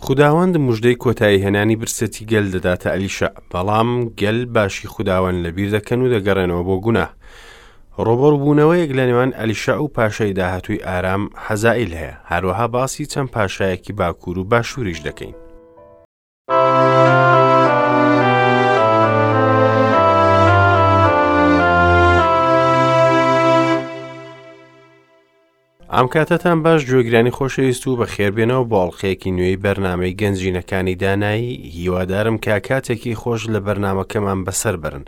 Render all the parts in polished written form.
خوداوەند مژدەی کۆتاییهێنانی برسێتی گەل دەداتە ئەلیشەع، بەڵام گەل باشی خوداوەند لەبیر دەکەن و دەگەڕێنەوە بۆ گوناه. ڕووبەڕووبوونەوەیەک لە نێوان ئەلیشەع و پاشای داهاتووی ئارام حەزائیل هەیە، هەروەها باسی چەند پاشایەکی باکوور و باشووریش دەکەین. ئەم کاتەتان باش گوێگرانی خۆشەویست و بەخێربێنەوە بۆ ئەڵلقەیەکی نوێی بەرنامەی گەنجینەکانی دانایی هیوادارم کە کاتێکی خۆش لە بەرنمەکەمان بەسەر بەرن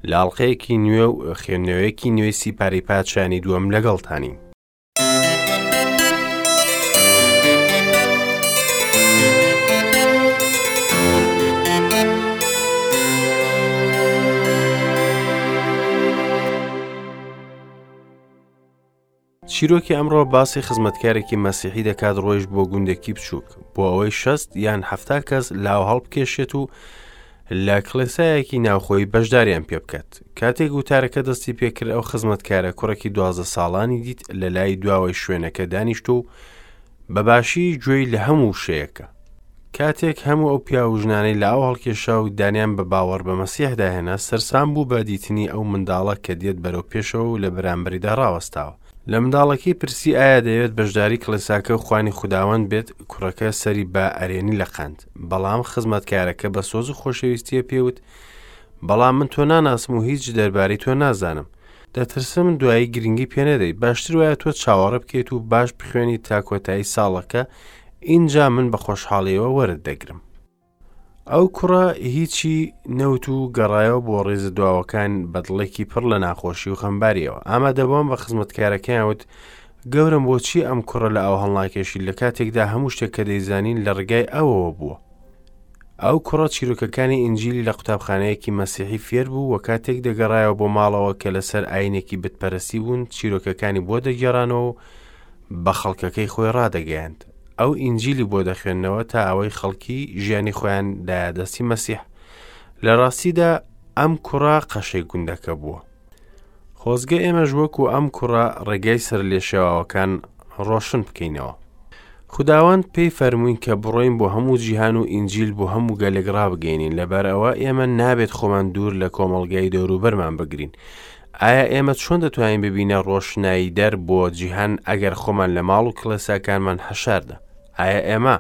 لە ئەڵلقەیەکی نوێ و خوێندنەوەیەکی نوێی سیپاری پادشانی دووەم لەگەڵتانین. چیرۆکی ئەمڕۆ باسی خزمەتکارێکی مەسیحی دەکات ڕۆیشت بۆ گوندێکی بچووک بۆ ئەوەی شەست یان حەفتا کەس لاو هەڵبکێشێت و لە کڵێسایەکی ناوخۆی بەشداریان پێ بکات کاتێک وتارەکە دەستی پێکرد ئەو خزمەتکارە کوڕێکی دوازدە ساڵانی دیت لە لای دواوەی شوێنەکە دانیشت و بە باشی گوێی لە هەموو وشەیەکە کاتێک هەموو ئەو پیاو و ژنانەی لە ئاو هەڵکێشا و دانیان بە باوەڕ بە مەسیحدا هێنا، سەرسام بوو بە دیتنی ئەو منداڵە کە دێت بەرەو پێشەوە و لە بەرامبەریدا ڕاوەستاوە. لە منداڵەکەی پرسی ئایا دەیەوێت بەشداری کڵێساکە و خوانی خوداوەند بێت، کوڕەکە سەری بە ئەرێنی لەقاند. بەڵام خزمەتکارەکە بە سۆز و خۆشەویستییە پێی وت، بەڵام من تۆ ناناسم و هیچ دەربارەی تۆ نازانم. دەترسم دوایی گرنگی پێ نەدەیت. باشتر وایە تۆ چاوەڕێ بکەیت و باش بخوێنیت تا کۆتایی ساڵەکە، ئینجا من بە خۆشحاڵیەوە وەرت دەگرم. ئەو کوڕە هیچی نەوت و گەڕایەوە بۆ ڕیزە دواوەکان بە دڵێکی پڕ لە ناخۆشی و خەمباریەوە. ئامادەبووان بە خزمەتکارەکەیان وت، گەورەم بۆچی ئەم کوڕە لە ئاو هەڵناکێشی لە کاتێکدا هەموو شتێک کە دەیزانین لە ڕێگای ئەوەوە بووە. ئەو کوڕە چیرۆکەکانی ئینجیلی لە قوتابخانەیەکی مەسیحی فێر بوو و کاتێک دەگەڕایەوە بۆ ماڵەوە کە لەسەر ئاینێکی بتپەرستی بوون چیرۆکەکانی بۆ دەگێڕانەوە و بە خەڵکەکەی خۆی ڕادەگەیاند. ئەو ئینجیلی بۆ دەخوێندنەوە تا ئەوەی خەڵکی ژیانی خۆیان دایە دەستی مەسیح. لە ڕاستیدا ئەم کوڕە قەشەی گوندەکە بووە. خۆزگە ئێمەش وەکو ئەم کوڕە ڕێگای سەرلێشێواوەکان ڕۆشن بکەینەوە. خوداوەند پێی فەرمووین کە بڕۆین بۆ هەموو جیهان و ئینجیل بۆ هەموو گەلێک ڕابگەینین لەبەر ئەوە ئێمە نابێت خۆمان دوور لە کۆمەڵگای دەوروبەرمان بگرین ئایا ئێمە چۆن دەتوانین ببینە ڕۆشنایی دەر بۆ جیهان ئەگەر خۆمان لە ماڵ و کڵێساکانمان حەشاردا؟ ئایا ئێمە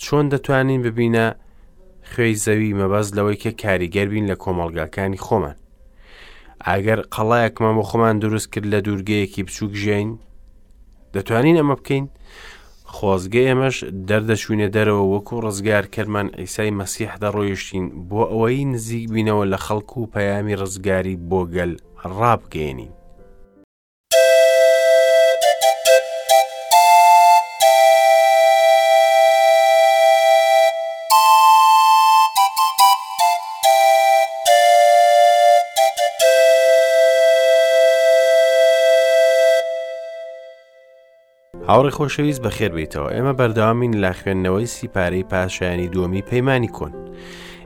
چۆن دەتوانین ببینە خوێی زەوی مەبەست لەوەی کە کاریگەر بین لە کۆمەڵگاکانی خۆمان؟ ئەگەر قەڵایەکمان بۆ خۆمان دروست کرد لە دوورگەیەکی بچووک ژیین دەتوانین ئەمە بکەین؟ خۆزگە ئێمەش دەردەچوینە دەرەوە وەکو ڕزگارکەرمان عیسای مەسیح دەڕۆیشتین بۆ ئەوەی نزیک بینەوە لە خەڵک و پەیامی ڕزگاری بۆ گەل ڕابگەیەنین. هاوڕێ خۆشەویست بەخێر بێیتەوە ئێمە بەردەوامین لە خوێندنەوەی سیپارەی پاشایانی دووەمی پەیمانی کۆن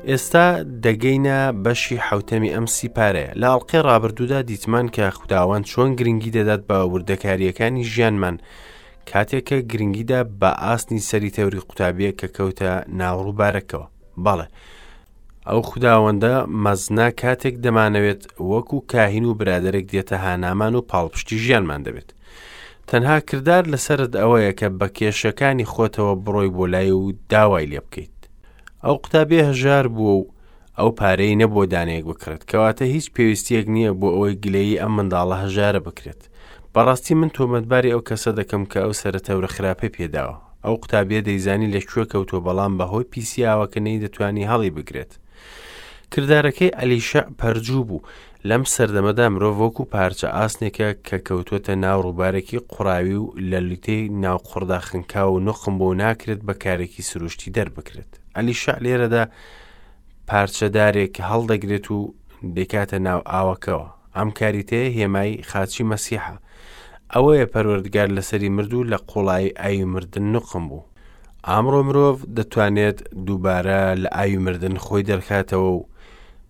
ئێستا دەگەینە بەشی حوتەمی ئەم سیپارەیە لە ئەڵلقەی ڕابردوودا دیتمان کە خوداوەند چۆن گرنگی دەدات بە وردەکاریەکانی ژیانمان کاتێک کە گرنگیدا بە ئاسنی سەری تەوری قوتابیە کە کەوتە ناوڕووبارەکەوە بەڵێ ئەو خوداوەندە مەزنە کاتێک دەمانەوێت وەکو کاهین و برادەرێک دێتە هانامان و پاڵپشتی ژیانمان دەبێت. تەنها کردار لەسەرت ئەوەیە کە بە کێشەکانی خۆتەوە بڕۆی بۆ لای و داوای لێ بکەیت. ئەو قوتابیە هەژار بووە و ئەو پارەی نەبووە دانەیەک بکڕێت، کەواتە هیچ پێویستیەک نییە بۆ ئەوەی گلەیی ئەم منداڵە هەژارە بکرێت. بەڕاستی من تۆمەتباری ئەو کەسە دەکەم کە ئەو سەرە تەورە خراپەی پێداوە. ئەو قوتابیە دەیزانی لە کوێ کەوتووە بەڵام بەهۆی پیسی ئاوەکە نەیدەتوانی هەڵی بگرێت. کردارەکەی ئەلیشەع پەرجوو بوو. لەم سەردەمەدا مرۆڤ وەکو پارچە ئاسنێکە کە کەوتووەتە ناو ڕووبارێکی قوڕاوی و لە لوتەی ناو قوڕدا خنکاو و نوقم بوو ناکرێت بە کارێکی سروشتی دەربکرێت. ئەلیشەع لێرەدا پارچە دارێک هەڵدەگرێت و دەیکاتە ناو ئاوەکەوە. ئەم کاریتەیە هێمای خاچی مەسیحە. ئەوەیە پەروەردگار لەسەری مرد و لە قوڵایی ئاوی مردن نوقم بوو. ئامڕۆ مرۆڤ دەتوانێت دووبارە لە ئاوی مردن خۆی دەرخاتەوە و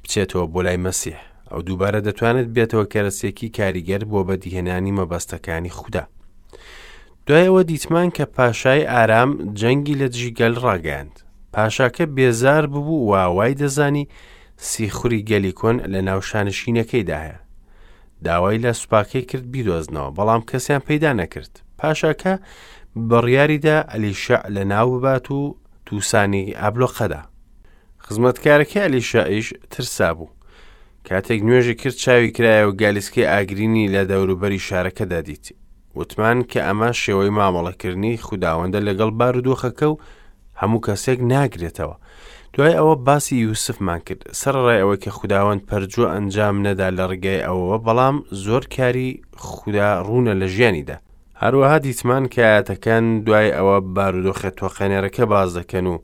بچێتەوە بۆ لای مەسیح. ئەو دووبارە دەتوانێت بێتەوە کەرەسێکی کاریگەر بۆ بەدیهێنانی مەبەستەکانی خودا. دوای ئەوە دیتمان کە پاشای ئارام جەنگی لە دژی گەل ڕاگەیاند. پاشاکە بێزار ببوو و وای دەزانی سیخوری گەلی کۆن لە ناو شانشینەکەیدا هەیە. داوای لە سوپاکەی کرد بیدۆزنەوە، بەڵام کەسیان پەیدا نەکرد. پاشاکە بڕیاریدا ئەلیشەع لە ناو ببات و تووسانی ئابلۆقەدا. خزمەتکارەکەی ئەلیشەعیش ترسابوو. کاتێک نوێژی کرد چاوی کرایە و گالیسکەی ئاگرینی لە دەوروبەری شارەکەدا دیت. وتمان کە ئەمە شێوەی مامەڵەکردنی خوداوەندە لەگەڵ بارودۆخەکە و هەموو کەسێک ناگرێتەوە. دوای ئەوە باسی یوسفمان کرد، سەرەڕای ئەوەی کە خوداوەند پەرجوو ئەنجام نەدا لە ڕێگای ئەوەوە، بەڵام زۆر کاری خودا ڕوونە لە ژیانیدا. هەروەها دیتمان کە ئایەتەکان دوای ئەوە بارودۆخە تۆقێنەرەکە باس دەکەن و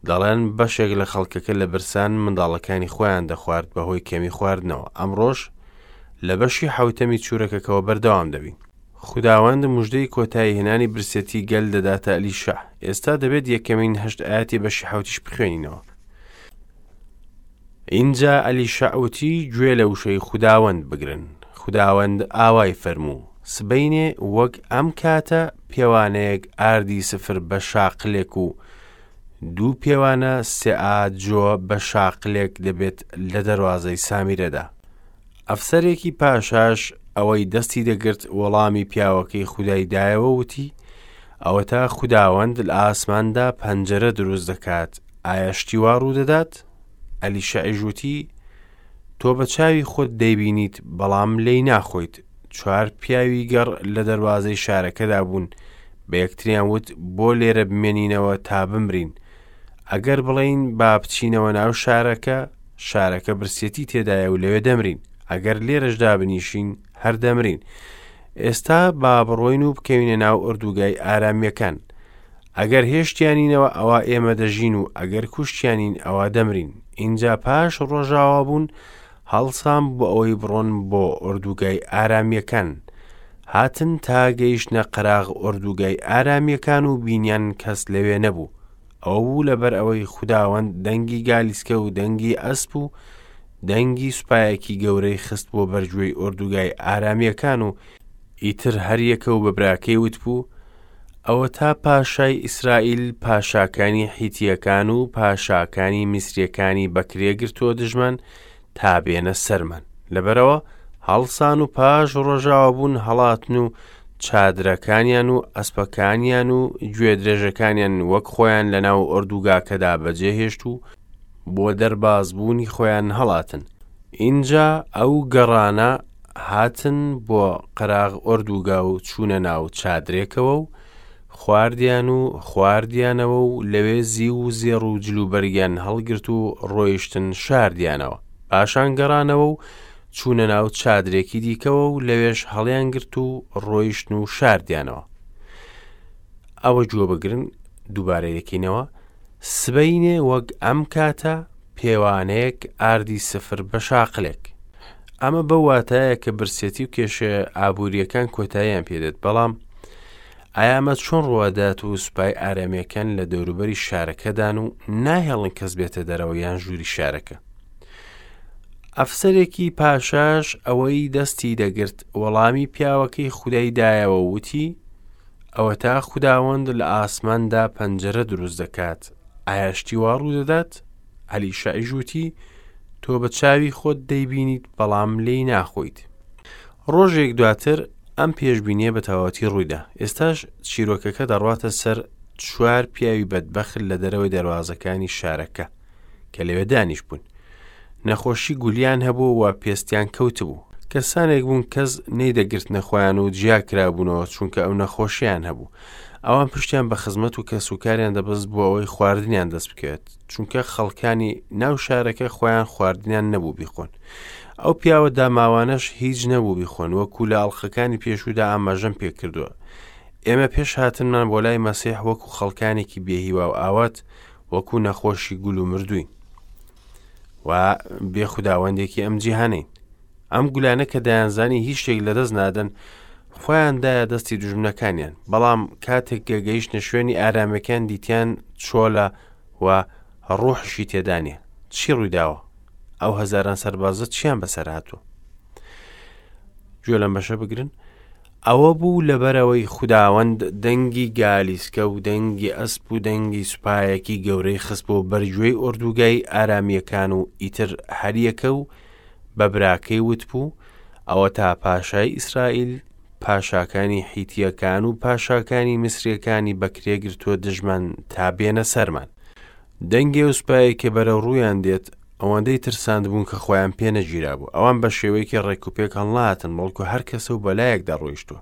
دەڵێن بەشێک لە خەڵکەکە لە برسان منداڵەکانی خۆیان دەخوارد بەهۆی کەمی خواردنەوە. ئەمڕۆش لە بەشی حەوتەمی چورەکەکەوە بەردەوام دەبین. خوداوەند مژدەی کۆتایی هێنانی برسێتی گەل دەداتە ئەلیشەع. ئێستا دەبێت یەکەمین هەشت ئایەتی بەشی حەوتیش بخوێنینەوە. ئینجا ئەلیشەع وتی گوێ لە وشەی خوداوەند بگرن. خوداوەند ئاوای فەرموو، سبەینێ وەک ئەم کاتە پێوانەیەک ئاردی سفر بە شاقلێک و دوو پێوانە سێئا جۆ بە شاقلێک دەبێت لە دەروازەی سامیرەدا. ئەفسەرێکی پاشاش ئەوەی دەستی دەگرت وەڵامی پیاوەکەی خودای دایەوە وتی، ئەوەتا خوداوەند لە ئاسماندا پەنجەرە دروست دەکات، ئایا شتی وا ڕوودەدات؟ ئەلیشەعیش وتی، تۆ بە چاوی خۆت دەیبینیت، بەڵام لێی ناخۆیت. چوار پیاوی گەڕ لە دەروازەی شارەکەدا بوون، بە یەکتریان وت، بۆ لێرە بمێنینەوە تا بمرین؟ ئەگەر بڵێین با بچینەوە ناو شارەکە، شارەکە برسێتی تێدایە و لەوێ دەمرین. ئەگەر لێرەش دابنیشین، هەر دەمرین. ئێستا با بڕۆین و بکەوینە ناو ئۆردوگای ئارامییەکان. ئەگەر هێشتیانینەوە ئەوا ئێمە دەژین و ئەگەر کوشتیانین ئەوا دەمرین. ئینجا پاش ڕۆژاوابوون هەڵسان بۆ ئەوەی بڕۆن بۆ ئۆردوگای ئارامییەکان. هاتن تا گەیشتنە قەراغ ئۆردوگای ئارامییەکان و بینیان کەس لەوێ نەبوو. ئەوە بوو لەبەر ئەوەی خوداوەند دەنگی گالیسکە و دەنگی ئەسپ و دەنگی سوپایەکی گەورەی خست بۆ بەرگوێی ئۆردوگای ئارامییەکان و ئیتر هەریەکە و بە براکەی وتبوو، ئەوەتا پاشای ئیسرائیل پاشاکانی حیتییەکان و پاشاکانی میسرییەکانی بەکرێ گرتووە دژمان تا بێنە سەرمان. لەبەرئەوە هەڵسان و پاش ڕۆژاوابوون هەڵاتن و چادرەکانیان و ئەسپەکانیان و گوێدرێژەکانیان وەک خۆیان لەناو ئۆردوگاکەدا بەجێهێشت و بۆ دەربازبوونی خۆیان هەڵاتن. ئینجا ئەو گەڕانە هاتن بۆ قەراغ ئۆردوگا و چوونە ناو چادرێکەوە و خواردیان و خواردیانەوە و لەوێ زیو و زێڕ و جلوبەرگیان هەڵگرت و ڕۆیشتن شاردیانەوە. پاشان گەڕانەوە و چوونە ناو چادرێکی دیکەوە و لەوێش هەڵیانگرت و ڕۆیشتن و شاردیانەوە. ئەوە گوێ بگرن دووبارەی دەکەینەوە سبەینێ وەک ئەم کاتە پێوانەیەک ئاردی سفر بە شاقلێک. ئەمە بەو واتایە کە برسێتی و کێشە ئابوورییەکان کۆتاییان پێدێت، بەڵام ئایا ئەمە چۆن ڕووەدات و سوپای ئارامییەکان لە دەوروبەری شارەکەدان و ناهێڵن کەس بێتە دەرەوە یان ژووری شارەکە؟ ئەفسەرێکی پاشاش ئەوەی دەستی دەگرت وەڵامی پیاوەکەی خودای دایەوە وتی، ئەوەتا خوداوەند لە ئاسماندا پەنجەرە دروست دەکات، ئایا شتی وا ڕوودەدات؟ ئەلیشەعیش وتی، تۆ بە چاوی خۆت دەیبینیت بەڵام لێی ناخۆیت. ڕۆژێک دواتر ئەم پێشبینیە بە تەواوەتی ڕوویدا. ئێستاش چیرۆکەکە دەڕواتە سەر چوار پیاوی بەدبەخت لە دەرەوەی دەروازەکانی شارەکە کە لەوێ دانیشتبوون. نەخۆشی گولیان هەبوو و پێستیان کەوتبوو. کەسانێک بوون کەس نەیدەگرتنە خۆیان و جیا کرابوونەوە چونکە ئەو نەخۆشیان هەبوو. ئەوان پشتیان بە خزمەت و کەسوکاریان دەبەست بۆ ئەوەی خواردنیان دەست بکەوێت، چونکە خەڵکانی ناو شارەکە خۆیان خواردنیان نەبوو بیخۆن. ئەو پیاوە داماوانەش هیچ نەبوو بیخۆن، وەکو لە ئەڵقەکانی پێشوودا ئاماژەم پێکردووە. ئێمە پێش هاتنمان بۆ لای مەسیح وەکو خەڵکانێکی بێهیوا و ئاوات، وەکو نەخۆشی گول و مردووین و بێ خوداوەندێکی ئەم جیهانین. ئەم گولانە کە دەیانزانی هیچ شتێک لەدەست نادەن، خۆیان دایە دەستی دوژمنەکانیان، بەڵام کاتێک کە گەیشتنە شوێنی ئارامیەکان دیتیان چۆلە و ڕوحیشی تێدا نییە. چی ڕوویداوە؟ ئەو هەزاران سەربازە چیان بەسەر هاتووە؟ گوێ لەم بەشە بگرن. ئەوە بوو لەبەرئەوەی خوداوەند دەنگی گالیسکە و دەنگی ئەسپ و دەنگی سوپایەکی گەورەی خستبووە بەرگوێی ئۆردوگای ئارامییەکان و ئیتر هەریەکە و بە براکەی وتبوو، ئەوەتا پاشای ئیسرائیل پاشاکانی حیتییەکان و پاشاکانی میسرییەکانی بەکرێ گرتووە دژمان تا بێنە سەرمان. دەنگی ئەو سوپایەی کە بەرەو ڕوویان دێت ئەوەندەی ترساندبوون کە خۆیان پێ نەگیرابوو. ئەوان بە شێوەیەکی ڕێکوپێک هەڵنەهاتن، بەڵکو هەر کەسە و بەلایەکدا ڕۆیشتووە.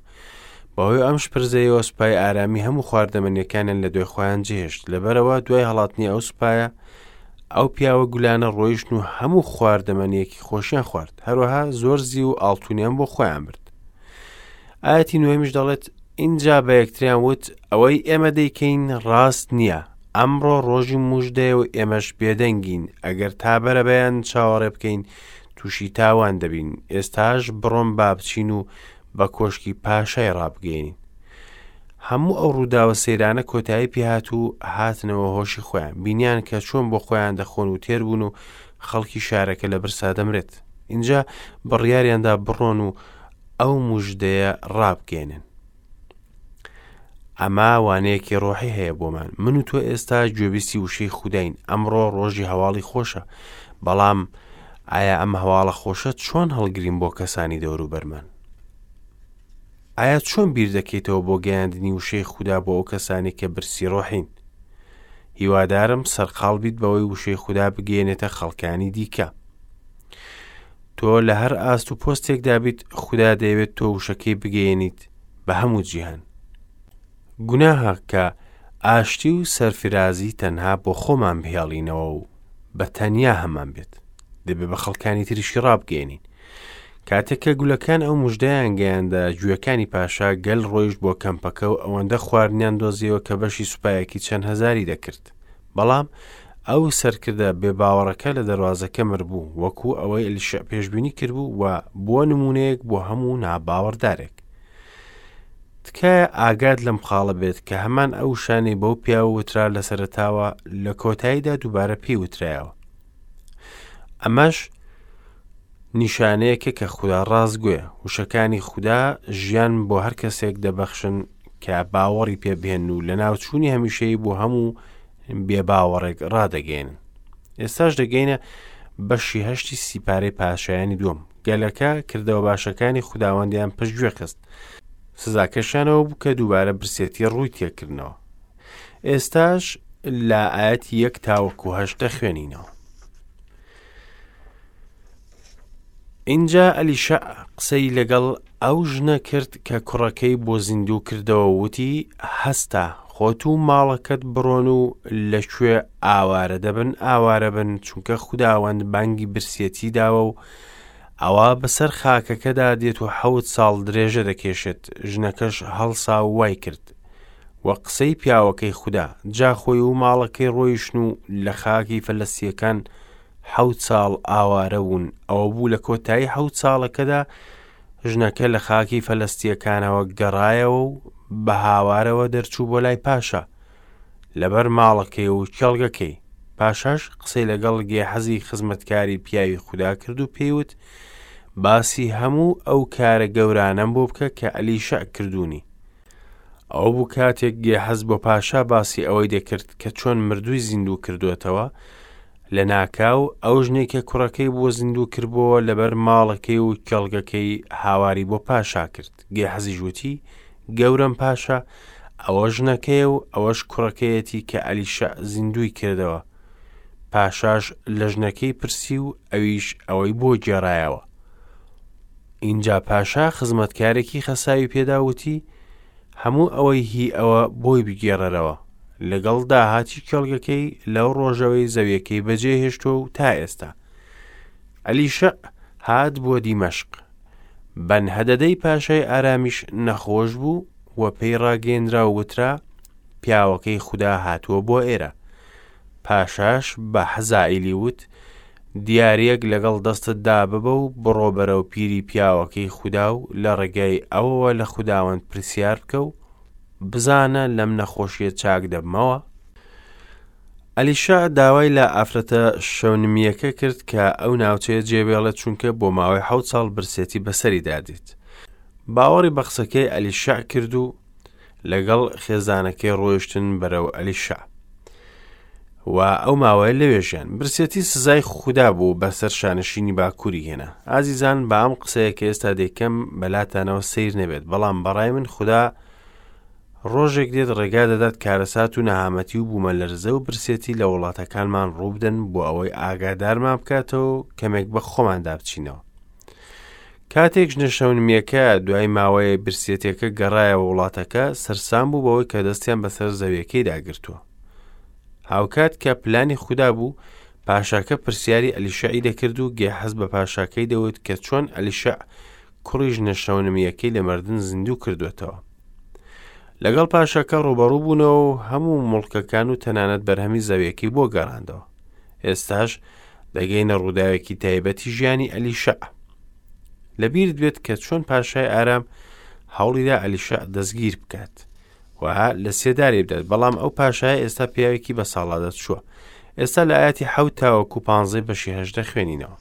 بەهۆی ئەم شپرزەیەوە سوپای ئارامی هەموو خواردەمەنیەکانیان لە دوای خۆیان جێهێشت. لەبەرئەوە دوای هەڵاتنی ئەو سوپایە، ئەو پیاوە گولانە ڕۆیشتن و هەموو خواردەمەنیەکی خۆشیان خوارد. هەروەها زۆر زیو و ئاڵتونیان بۆ خۆیان برد. ئایەتی نۆیەمیش دەڵێت، ئینجا بە یەکتریان وت، ئەوەی ئێمە دەیکەین ڕاست نییە. ئەمڕۆ ڕۆژی موژدەیە و ئێمەش بێدەنگین، ئەگەر تا بەرەبەیان چاوەڕێ بکەین تووشی تاوان دەبین، ئێستاش بڕۆن با بچین و بە کۆشکی پاشای ڕابگەیەنین. هەموو ئەو ڕووداوە سەیرانە کۆتایی پێهات و هاتنەوە هۆشی خۆیان، بینیان کە چۆن بۆ خۆیان دەخۆن و تێر بوون و خەڵکی شارەکە لە برسا دەمرێت. ئینجا بڕیاریاندا بڕۆن و ئەو موژدەیە ڕابگەیەنن. ئەمە وانەیەکی ڕۆحی هەیە بۆمان من و تۆ ئێستا گوێبیستی وشەی خوداین ئەمڕۆ ڕۆژی هەواڵی خۆشە بەڵام ئایا ئەم هەواڵە خۆشە چۆن هەڵگرین بۆ کەسانی دەوروبەرمان ئایا چۆن بیر دەکەیتەوە بۆ گەیاندنی وشەی خودا بۆ ئەو کەسانی کە برسی ڕۆحین هیوادارم سەرقاڵ بیت بەوەی وشەی خودا بگەێنێتە خەڵکانی دیکە تۆ لە هەر ئاست و پۆستێکدا بیت خودا دەیەوێت تۆ وشەکەی بگەیەنیت بە هەموو جیهان. گوناهە کە ئاشتی و سەرفرازی تەنها بۆ خۆمان بهێڵینەوە و بە تەنیا هەمان بێت. دەبێ بە خەڵکانی تریشی ڕابگەیەنین. کاتێک کە گولەکان ئەو مژدەیان گەیاندە گوێکانی پاشا گەل ڕۆیشت بۆ کەمپەکە و ئەوەندە خواردنیان دۆزیەوە کە بەشی سوپایەکی چەند هەزاری دەکرد. بەڵام ئەو سەرکردە بێباوەڕەکە لە دەروازەکە مربوو، وەکو ئەوەی ئەلیشع پێشبینی کردبوو و بووە نموونەیەک بۆ هەموو ناباوەڕدارێک. تکایە ئاگات لەم خاڵە بێت کە هەمان ئەو وشانەی بەو پیاوە وترا لە سەرەتاوە لە کۆتاییدا دووبارە پێی وترایەوە. ئەمەش نیشانەیەکە کە خودا ڕاستگۆیە. وشەکانی خودا ژیان بۆ هەر کەسێک دەبەخشن کە باوەڕی پێ بهێن و لەناوچوونی هەمیشەیی بۆ هەموو بێباوەڕێک ڕادەگەیەنن. ئێستاش دەگەینە بەشی هەشتی سیپارەی پاشایانی دووەم. گەلەکە کردەوە باشەکانی خوداوەندیان پشتگوێ خست. سزاکەشیانەوە بوو کە دووبارە برسێتی ڕووی تێکردنەوە. ئێستاش لە ئاەتی یەک تاوەکو هەشت دەخوێنینەوە. ئینجا ئەلیشەع قسەی لەگەڵ ئەو ژنە کرد کە کوڕەکەی بۆ زیندوو کردەوە و وتی، هەستە، خۆت و ماڵەکەت بڕۆن و لەکوێ ئاوارە دەبن ئاوارە بن، چونکە خوداوەند بانگی برسیەتی داوە و ئەوا بەسەر خاکەکەدا دێت و حەوت ساڵ درێژە دەکێشێت. ژنەکەش هەڵسا و وای کرد. و قسەی پیاوەکەی خودا، جا خۆی و ماڵەکەی ڕۆیشتن و لە خاکی فەلەستییەکان حەوت ساڵ ئاوارە بوون، ئەوە بوو لە کۆتایی حەوت ساڵەکەدا ژنەکە لە خاکی فەلەستییەکانەوە گەڕایەوە و بە هاوارەوە دەرچوو بۆ لای پاشا لەبەر ماڵەکەی و کێڵگەکەی. پاشاش قسەی لەگەڵ گێحەزی خزمەتکاری پیاوی خودا کرد و پێی وت، باسی هەموو ئەو کارە گەورانەم بۆ بکە کە ئەلیشەع کردوونی. ئەوە بوو کاتێک گێحەز بۆ پاشا باسی ئەوەی دەکرد کە چۆن مردووی زیندوو کردووەتەوە، لەناکاو ئەو ژنەی کە کوڕەکەی بۆ زیندوو کردبۆوە لەبەر ماڵەکەی و کێڵگەکەی هاواری بۆ پاشا کرد. گێحەزیش وتی، گەورەم پاشا، ئەوە ژنەکەیە و ئەوەش کوڕەکەیەتی کە ئەلیشەع زیندووی کردەوە. پاشاش لە ژنەکەی پرسی و ئەویش ئەوەی بۆ گێڕایەوە. ئینجا پاشا خزمەتکارێکی خەساوی پێدا وتی، هەموو ئەوەی هی ئەوە بۆی بگێڕەرەوە، لەگەڵ داهاتی کێڵگەکەی لەو ڕۆژەوەی زەویەکەی بەجێ هێشتووە و تا ئێستا. ئەلیشەع هات بۆ دیمەشق. بەنهەدەدەی پاشای ئارامیش نەخۆش بوو و پێی ڕاگەیەنرا و وترا، پیاوەکەی خودا هاتووە بۆ ئێرە. پاشاش بە حەزائیلی وت، دیارییەک لەگەڵ دەستتدا ببە و بڕۆ بەرەو پیری پیاوەکەی خودا و لە ڕێگای ئەوەوە لە خوداوەند پرسیار بکە و بزانە لەم نەخۆشیە چاک دەبمەوە؟ ئەلیشا داوای لە ئافرەتە شەونمییەکە کرد کە ئەو ناوچەیە جێبێڵێت چونکە بۆ ماوەی حەوت ساڵ برسێتی بەسەریدا دێت. باوەڕی بە قسەکەی ئەلیشەع کرد و لەگەڵ خێزانەکەی ڕۆیشتن بەرەو ئەلیشەع و ئەو ماوەیە لەوێ ژیان. برسێتی سزای خودا بوو بەسەر شانشینی باکووری هێنا. ئازیزان با ئەم قسەیە کە ئێستا دەیکەم بەلاتانەوە سەیر نەبێت، بەڵام بەڕای من خودا ڕۆژێک دێت ڕێگا دەدات کارەسات و نەهامەتی و بوومەلەرزە و برسێتی لە وڵاتەکانمان ڕووبدەن بۆ ئەوەی ئاگادارمان بکاتەوە و کەمێک بە خۆماندا بچینەوە. کاتێک ژنە شەونمییەکە دوای ماوەیە برسێتیەکە گەڕایەوە وڵاتەکە، سەرسام بوو بەوەی کە دەستیان بەسەر زەویەکەیدا گرتووە. هاوکات کە پلانی خودا بوو، پاشاکە پرسیاری ئەلیشەعی دەکرد و گێحەز بە پاشاکەی دەوت کە چۆن ئەلیشەع کوڕی ژنە شەونمییەکەی لە مردن زیندوو کردووەتەوە. لەگەڵ پاشاکە ڕووبەڕوو بوونەوە و هەموو موڵکەکان و تەنانەت بەرهەمی زەویەکەی بۆ گەڕاندەوە. ئێستاش دەگەینە ڕووداوێکی تایبەتی ژیانی ئەلیشەع. لەبیرت بێت کە چۆن پاشای ئارام هەوڵیدا ئەلیشەع دەستگیر بکات و لە سێدارەی بدات، بەڵام ئەو پاشایە ئێستا پیاوێکی بە ساڵادا چووە. ئێستا لە ئاەتی حەوت تاوەکو پانزەی بەشی هەژدە خوێنینەوە.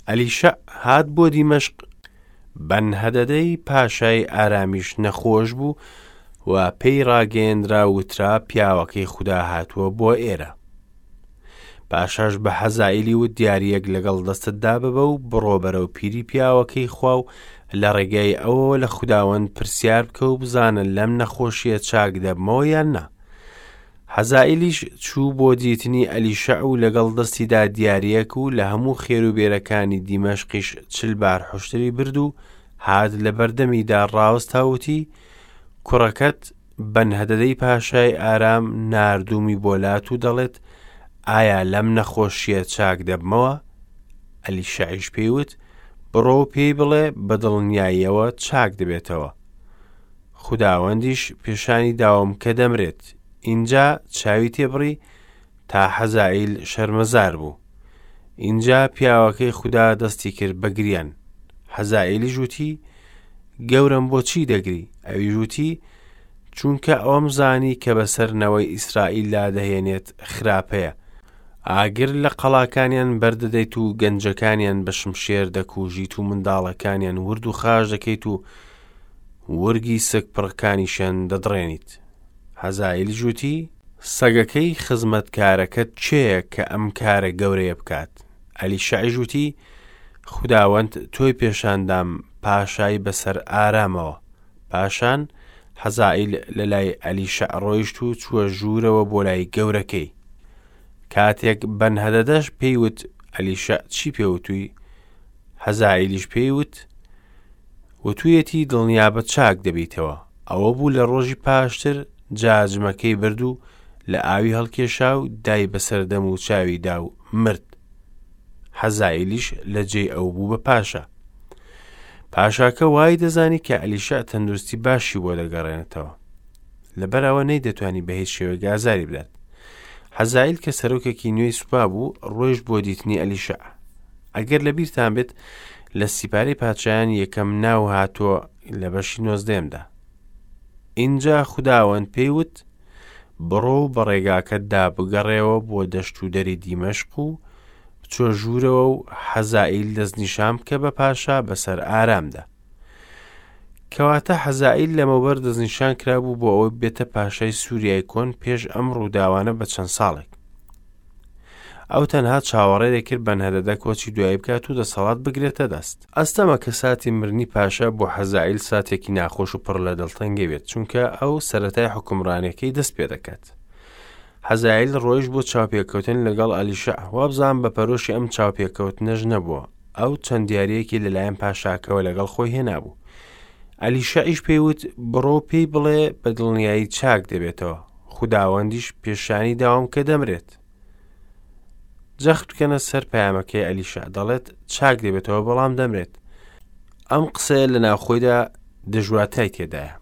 ئەلیشەع هات بۆ دیمەشق، بەنهەدەدەی پاشای ئارامیش نەخۆش بوو و پێی ڕاگەیەنرا وترا پیاوەکەی خودا هاتووە بۆ ئێرە. پاشاش بە حەزائیلی وت دیارییەک لەگەڵ دەستتدا ببە و بڕۆ بەرەو پیری پیاوەکەی خوا و لە ڕێگای ئەوەوە لە خوداوەند پرسیار بکە و بزانە لەم نەخۆشییە چاک دەبمەوە یان نا. حەزائیلیش چوو بۆ دیتنی ئەلیشەع و لەگەڵ دەستیدا دیارییەک و لە هەموو خێروبێرەکانی دیمەشقیش چل بار حوشتری برد و هات لە بەردەمیدا ڕاوەستا و وتی، کوڕەکەت بەنهەدەدەی پاشای ئارام ناردوومی بۆ لات و دەڵێت، ئایا لەم نەخۆشییە چاک دەبمەوە؟ ئەلیشەعیش پێی وت، بڕۆ و پێی بڵێ بە دڵنیاییەوە چاک دەبێتەوە. خوداوەندیش پێشانی داوم کە دەمرێت. ئینجا چاوی تێبڕی تا حەزائیل شەرمەزار بوو. ئینجا پیاوەکەی خودا دەستی کرد بە گریان. حەزائیلیش وتی، گەورەم بۆچی دەگری؟ ئەویش وتی، چونکە ئەوەم زانی کە بەسەر نەوەی ئیسرائیلدا دەهێنێت خراپەیە. ئاگر لە قەڵاکانیان بەردەدەیت و گەنجەکانیان بە شمشێر دەکوژیت و منداڵەکانیان ورد و خاش دەکەیت و ورگی سک پڕەکانیشیان دەدڕێنیت. حەزائیلیش وتی، سەگەکەی خزمەتکارەکەت کێیە کە ئەم کارە گەورەیە بکات؟ ئەلیشەعیش وتی، خوداوەند تۆی پێشاندام پاشای بەسەر ئارامەوە. پاشان حەزائیل لەلای ئەلیشەع ڕۆیشت و چووە ژوورەوە بۆ لای گەورەکەی. کاتێک بەنهەدەدەش پێی وت، ئەلیشەع چی پێ وتووی؟ حەزائیلیش پێی وت، وتویەتی دڵنیابە چاک دەبیتەوە. ئەوە بوو لە ڕۆژی پاشتر جاجمەکەی برد و لە ئاوی هەڵکێشا و دای بەسەر دەم و چاوی دا و مرد. حەزائیلیش لە جێی ئەو بوو بە پاشا. پاشاکە وای دەزانی کە ئەلیشع تەندروستی باشی بۆ دەگەڕێنێتەوە. لەبەر ئەوە نەیدەتوانی بە هیچ شێوەیەک ئازاری بدات. حەزائیل کە سەرۆکێکی نوێی سوپا بوو، ڕۆیشت بۆ دیتنی ئەلیشع. ئەگەر لەبیرتان بێت لە سیپارەی پادشایان یەکەم ناو هاتووە لە بەشی نۆزدەیەمدا. ئینجا خوداوەند پێی وت، بڕۆ و بە ڕێگاکەتدا بگەڕێوە بۆ دەشت و دەری دیمەشق و بچۆ ژوورەوە و حەزائیل دەستنیشان بکە بە پاشا بەسەر ئارامدا. کەواتە حەزائیل لەمەوبەر دەستنیشان کرابوو بۆ ئەوەی بێتە پاشای سووریای کۆن پێش ئەم ڕووداوانە بە چەند ساڵێک. ئەو تەنها چاوەڕێ دەکرد بەنهەدەدە کۆچی دوایی بکات و دەسەڵات بگرێتە دەست. ئەستەمە کە ساتی مردنی پاشا بۆ حەزائیل ساتێکی ناخۆش و پڕ لە دڵتەنگی بێت، چونکە ئەو سەرەتای حوکمڕانیەکەی دەست پێدەکات. حەزائیل ڕۆیشت بۆ چاوپێکەوتن لەگەڵ ئەلیشەع، وابزانم بە پەرۆشی ئەم چاوپێکەوتنەش نەبووە، ئەو چەند دیارییەکی لەلایەن پاشاکەوە لەگەڵ خۆی هێنابوو. ئەلیشەعیش پێی وت، بڕۆ و پێی بڵێ بە دڵنیایی چاک دەبێتەوە. خوداوەندیش پێشانی داوم کە دەمرێت. جەخت بکەنە سەر پەیامەکەی ئەلیشا دەڵێت چاک دەبێتەوە بەڵام دەمرێت. ئەم قسەیە لە ناوخۆیدا دژواتای تێدایە.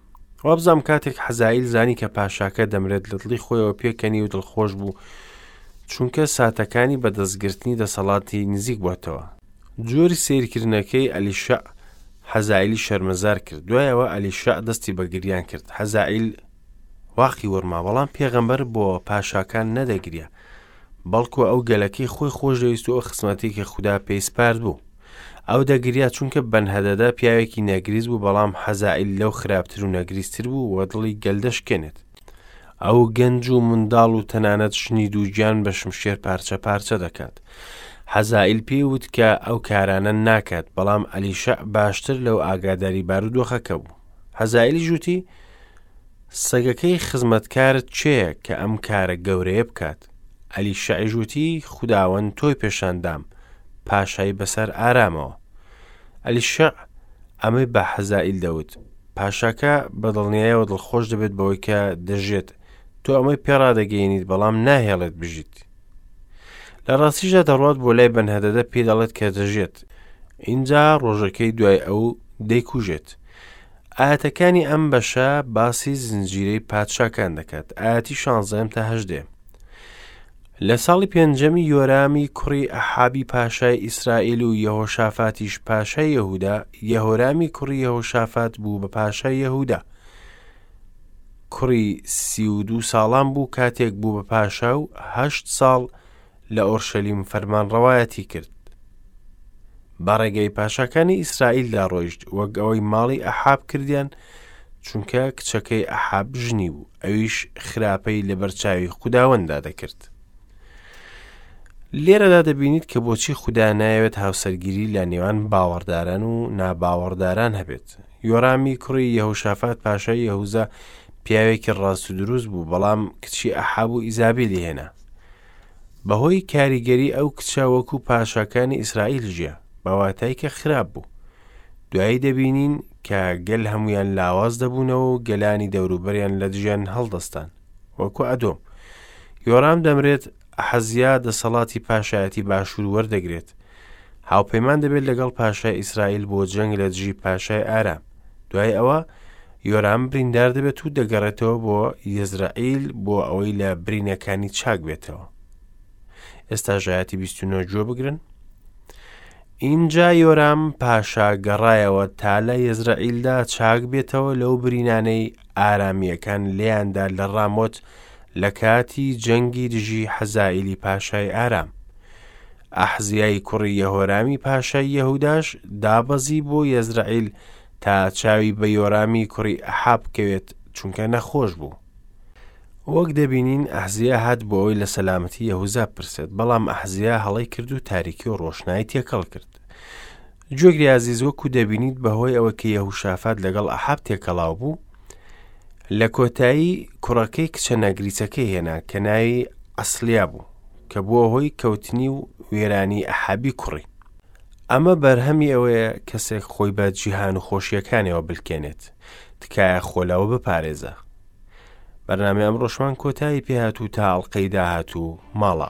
وابزانم کاتێک حەزائیل زانی کە پاشاکە دەمرێت لە دڵی خۆیەوە پێکەنی و دڵخۆش بوو چونکە ساتەکانی بەدەستگرتنی دەسەڵاتی نزیک بۆتەوە. جۆری سەیرکردنەکەی ئەلیشەع حەزائیلی شەرمەزار کرد. دوایەوە ئەلیشەع دەستی بە گریان کرد. حەزائیل واقی وڕما، بەڵام پێغەمبەر بۆ پاشاکان نەدەگریا، بەڵکو ئەو گەلەکەی خۆی خۆشدەویست و ئەو خزمەتەی کە خودا پێی سپارد بوو. ئەو دەگریا چونکە بەنهەدەدە پیاوێکی نەگریس بوو، بەڵام حەزائیل لەو خراپتر و نەگریستر بوو و دڵی گەل دەشکێنێت. ئەو گەنج و منداڵ و تەنانەت ژنی دووگیان بە شمشێر پارچە پارچە دەکات. حەزائیل پێی وت کە ئەو کارانە ناکات، بەڵام ئەلیشەع باشتر لەو ئاگاداری بارودۆخەکە بوو. حەزائیلیش وتی، سەگەکەی خزمەتکارت کێیە کە ئەم کارە گەورەیە بکات؟ ئەلیشەعیش وتی، خوداوەند تۆی پێشاندام، پاشای بەسەر ئارامەوە. ئەلیشەع ئەمەی بە حەزائیل دەوت، پاشاکە بە دڵنیایەوە دڵخۆش دەبێت بەوەی کە دەژێت، تۆ ئەمەی پێڕادەگەیەنیت بەڵام ناهێڵێت بژیت. لە ڕاستیشدا دەڕوات بۆ لای بەنهەدەدە پێی دەڵێت کە دەژێت، ئینجا ڕۆژەکەی دوای ئەو دەیکوژێت. ئایەتەکانی ئەم بەشە باسی زنجیرەی پادشاکان دەکات ئایەتی شانزەیەم تا هەژدەیەم. لە ساڵی پێنجەمی یۆرامی کوڕی ئەحابی پاشای ئیسرائیل و یەهۆشافاتیش پاشای یەهودا، یەهۆرامی کوڕی یەهۆشافات بوو بە پاشای یەهودا. کوڕی 32 ساڵان بوو کاتێک بوو بە پاشا و هەشت ساڵ لە ئۆرشەلیم فەرمانڕەوایەتی کرد. بە ڕێگەی پاشاکانی ئیسرائیلدا ڕۆیشت، وەک ئەوەی ماڵی ئەحاب کردیان، چونکە کچەکەی ئەحاب ژنی بوو، ئەویش خراپەی لەبەرچاوی خوداوەنددا دەکرد. لێرەدا دەبینیت کە بۆچی خودا نایەوێت هاوسەرگیری لە نێوان باوەڕداران و ناباوەڕداران هەبێت. یۆرامی کوڕی یەهوشافات پاشای یەهوزا پیاوێکی ڕاست و دروست بوو، بەڵام کچی ئەحاب و ئیزابیلی هێنا. بەهۆی کاریگەری ئەو کچە وەکو پاشاکانی ئیسرائیل ژیا، بە واتای کە خراپ بوو. دوایی دەبینین کە گەل هەمویان لاواز دەبوونەوە و گەلانی دەوروبەریان لە دژیان هەڵدەستان، وەکو ئەدۆم. یۆرام دەمرێت، ئەحەزیا دەسەڵاتی پاشایەتی باشوور وەردەگرێت. هاوپەیمان دەبێت لەگەڵ پاشای ئیسرائیل بۆ جەنگ لە دژی پاشای ئارام. دوای ئەوە یۆرام بریندار دەبێت و دەگەڕێتەوە بۆ یەزرەعیل بۆ ئەوەی لە برینەکانی چاک بێتەوە. ئێستا ژایەتی 29 گوێ بگرن. ئینجا یۆرام پاشا گەڕایەوە تا لە یەزرەعیلدا چاک بێتەوە لەو برینانەی ئارامییەکان لێیاندا لە ڕامۆت لە کاتی جەنگی دژی حەزائیلی پاشای ئارام. ئەحزیای کوڕی یەهۆرامی پاشای یەهوداش دابەزی بۆ یەزرەعیل تا چاوی بە یۆرامی کوڕی ئەحاب بکەوێت، چونکە نەخۆش بوو. وەک دەبینین ئەحزیا هات بۆ ئەوەی لە سەلامەتی یەهوزا بپرسێت، بەڵام ئەحزیا هەڵەی کرد و تاریکی و ڕۆشنایی تێکەڵ کرد. گوێگری ئازیز وەکو دەبینیت بەهۆی ئەوە کە یەهوشافات لەگەڵ ئەحاب تێکەڵاو بوو، لە کۆتایی کوڕەکەی کچە نەگریسەکەی هێنا کە ناوی ئەسلیا بوو، کە بووە هۆی کەوتنی و وێرانی ئەحابی کوڕی. ئەمە بەرهەمی ئەوەیە کەسێک خۆی بە جیهان و خۆشیەکانیەوە بلکێنێت. تکایە خۆ لەوە بپارێزە. بەرنامەی ئەمڕۆشمان کۆتایی پێهات و تا ئەڵقەی داهاتوو ماڵا.